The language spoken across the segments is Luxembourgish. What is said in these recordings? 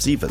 7.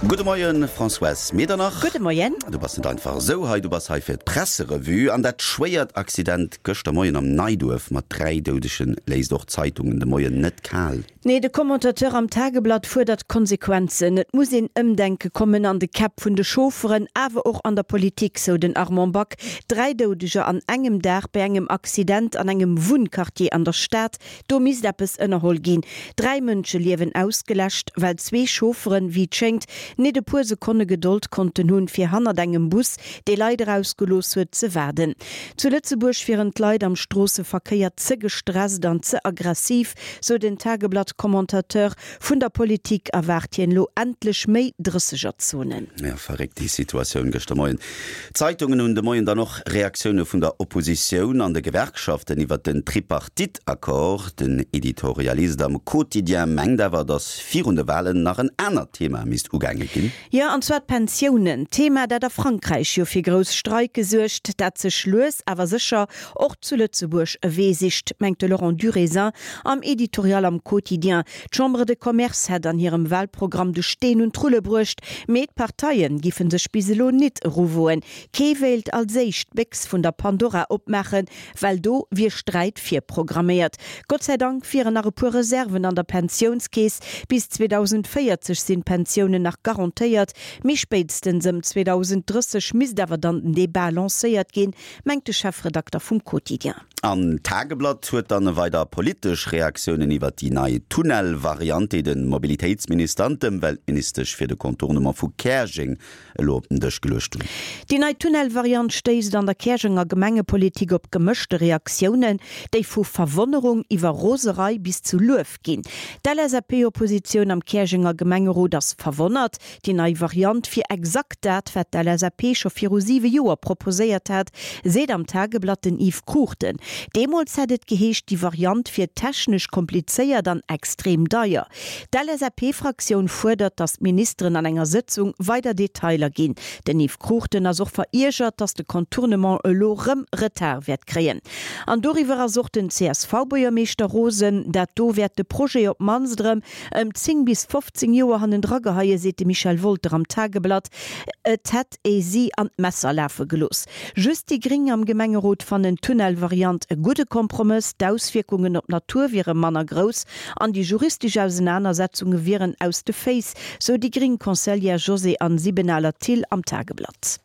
Gudde Moien, Françoise Medernach. Gudde Moien. Du bass net einfach esou hei, du bass hei fir d'Presserevue. An dat schwéiert Accident gëschter Moien am Neiduerf mat 3 Doudege léisst och d'Zeitungen de Moien net kal. Nee, de Commentateur am Tageblatt fuerdert Konsequenzen. Et muss een Ëmdenke kommen an de Käpp vun de Chaufferen, awer och an der Politik, sou den Armand Back. 3 Doudeger an engem Dag bei engem Accident an engem Wunnquartier an der Stad, do misst eppes ënnerholl ginn. 3 Mënscheliewen ausgeläscht, well zwee Chaufferen, wéi et schéngt, nit e puer Sekonne Gedold konnten hunn, fir hannert engem Bus, dee Leit erausgelooss huet, ze waarden. Zu Lëtzebuerg wieren d'Leit am Stroosseverkéier ze gestresst an ze aggressiv, sou den Tageblatt-Commentateur. Vun der Politik erwaart hien elo endlech méi Drëssegerzonen. Jo, verréckt déi Situatioun gëschter Moien. D'Zeitungen hunn de Moien dann och Reaktioune vun der Oppositioun an de Gewerkschaften iwwert den Tripartite-Accord. Den Editorialist am Quotidien mengt awer, datt virun de Walen nach en anert Thema misst ugaange ginn. Jo, an zwar d'Pensiounen. Thema, dat a Frankräich jo fir grouss Streike suergt, dat sech lues awer sécher och zu Lëtzebuerg e Wee sicht, mengt de Laurent Durézin am Editorial am Quotidien. D'Chambre de Commerce hätt an hirem Wahlprogramm de Steen un d'Rulle bruecht, mee d'Parteie giffe sech bis elo nit eruwoen. Kee wéilt als éischt d'Béchs vun der Pandora opmaachen, well do wier Sträit virprogramméiert. Gott sei Dank wieren nach e puer Reserven an der Pensiounskeess. Bis 2040 sinn d'Pensiounen nach garantéiert, mee spéitstens ëm 2030 misst awer dann den Debat lancéiert ginn, mengt de Chefredakter vum Quotidien. An d'Tageblatt huet dann weider politesch Reaktiounen iwwert déi nei Tunnel-Variant, déi de Mobilitéitsminister an d'Ëmweltministesch fir de Contournement vu Käerjeng elo op den Dësch geluecht hunn. Déi nei Tunnel-Variant stéisst an der Käerjenger Gemengepolitik op gemëschte Reaktiounen, déi vu Verwonnerung iwwer Roserei bis zu Luef ginn. D'LSAP-Oppositioun am Käerjenger Gemengerot ass verwonnert. Déi nei Variant wier exakt dat, wat d'LSAP scho viru siwe Joer proposéiert hat, seet am Tageblatt den Yves Cruchten. Deemools hätt et geheescht, déi Variant wier technesch komplizéiert an extrem deier. D'LSAP-Fraktioun fuerdert, datt d'Ministeren an enger Sëtzung weider Detailer ginn. Den Yves Cruchten ass och veriergert, datt de Contournement elo rëm Retard wäert kréien. An doriwwer ass och den CSV-Buergermeeschter rosen. Dat do wäert de Projet op d'mannst erëm ëm 10 bis 15 Joer hannendra geheien, seet de Michel Wolter am Tageblatt. Et hätt ee si an d'Messer lafe gelooss. Just déi Gréng am Gemengerot fannen d'Tunnelvariant e gudde Kompromëss. D'Auswierkungen op d'Natur wiere manner grouss an déi juristesch Ausenanersetzunge wieren aus de Féiss, sou déi gréng Conseillère Josée-Anne Siebenaler-Thill am Tageblatt.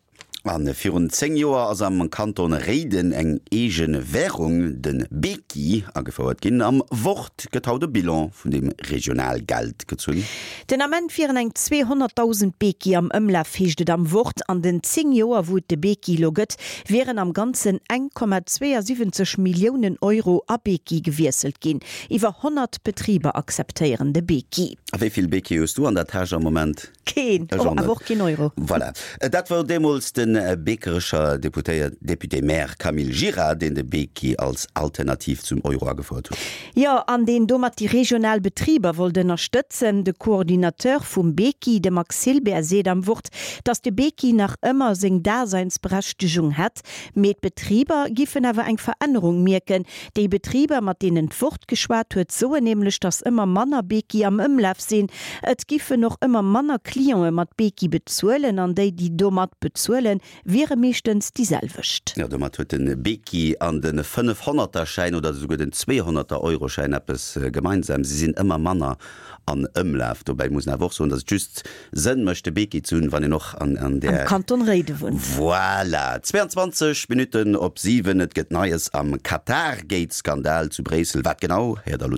A virun 10 Joer ass am Kanton Réiden eng eege Wärung, de Beki, agefouert ginn. Am Wort gëtt haut e Bilan vun dem Regionalgeld gezunn. Den Ament wieren eng 200.000 Beki am Ëmlaf, heescht et am Wort. An den 10 Joer, wou et de Beki elo gëtt, wieren am Ganzen 1,72 Milliounen Euro a Beki gewiesselt ginn. Iwwer 100 Betriber akzeptéieren de Beki. A wéi vill Beki hues du an der Täsch am Moment? Keen, Ech och net. awer och keen Euro. Voilà. Dat wor deemools de Beekerecher Deputéiert, Député-maire Camille Gira, deen de Beki als Alternativ zum Euro agefouert huet. Jo, an deen domat déi regional Betriber wollt ënnerstëtzen. De Coordinateur vum Beki, de Max Hilbert, seet am Wort, datt de Beki nach ëmmer seng Daseinsberechtegung hätt, mee d'Betriber giffen awer eng Verännerung mierken, Déi Betriber, mat deenen d'Wort geschwat huet, soen nämlech, datt ëmmer manner Beki am Ëmlaf sinn. Et giffen och ëmmer manner Clientë mat Beki bezuelen an déi, déi domat bezuelen, wiere meeschtens déi selwecht. Jo, domat huet de Beki an de Fënnefhonnerterschäin oder esouguer den Zweehonnerter-Euroschäin eppes gemeinsam, Si sinn ëmmer manner an Ëmlaf. Dobäi muss een awer och soen, datt et just Sënn mécht, de Beki ze hunn, wann een och an an där. Am Kanton Réiden wunnt. Voilà! 22 Minutten op 7, et gëtt Neies am Qatargate-Skandal zu Bréissel. Wat genau, héiert der elo direkt.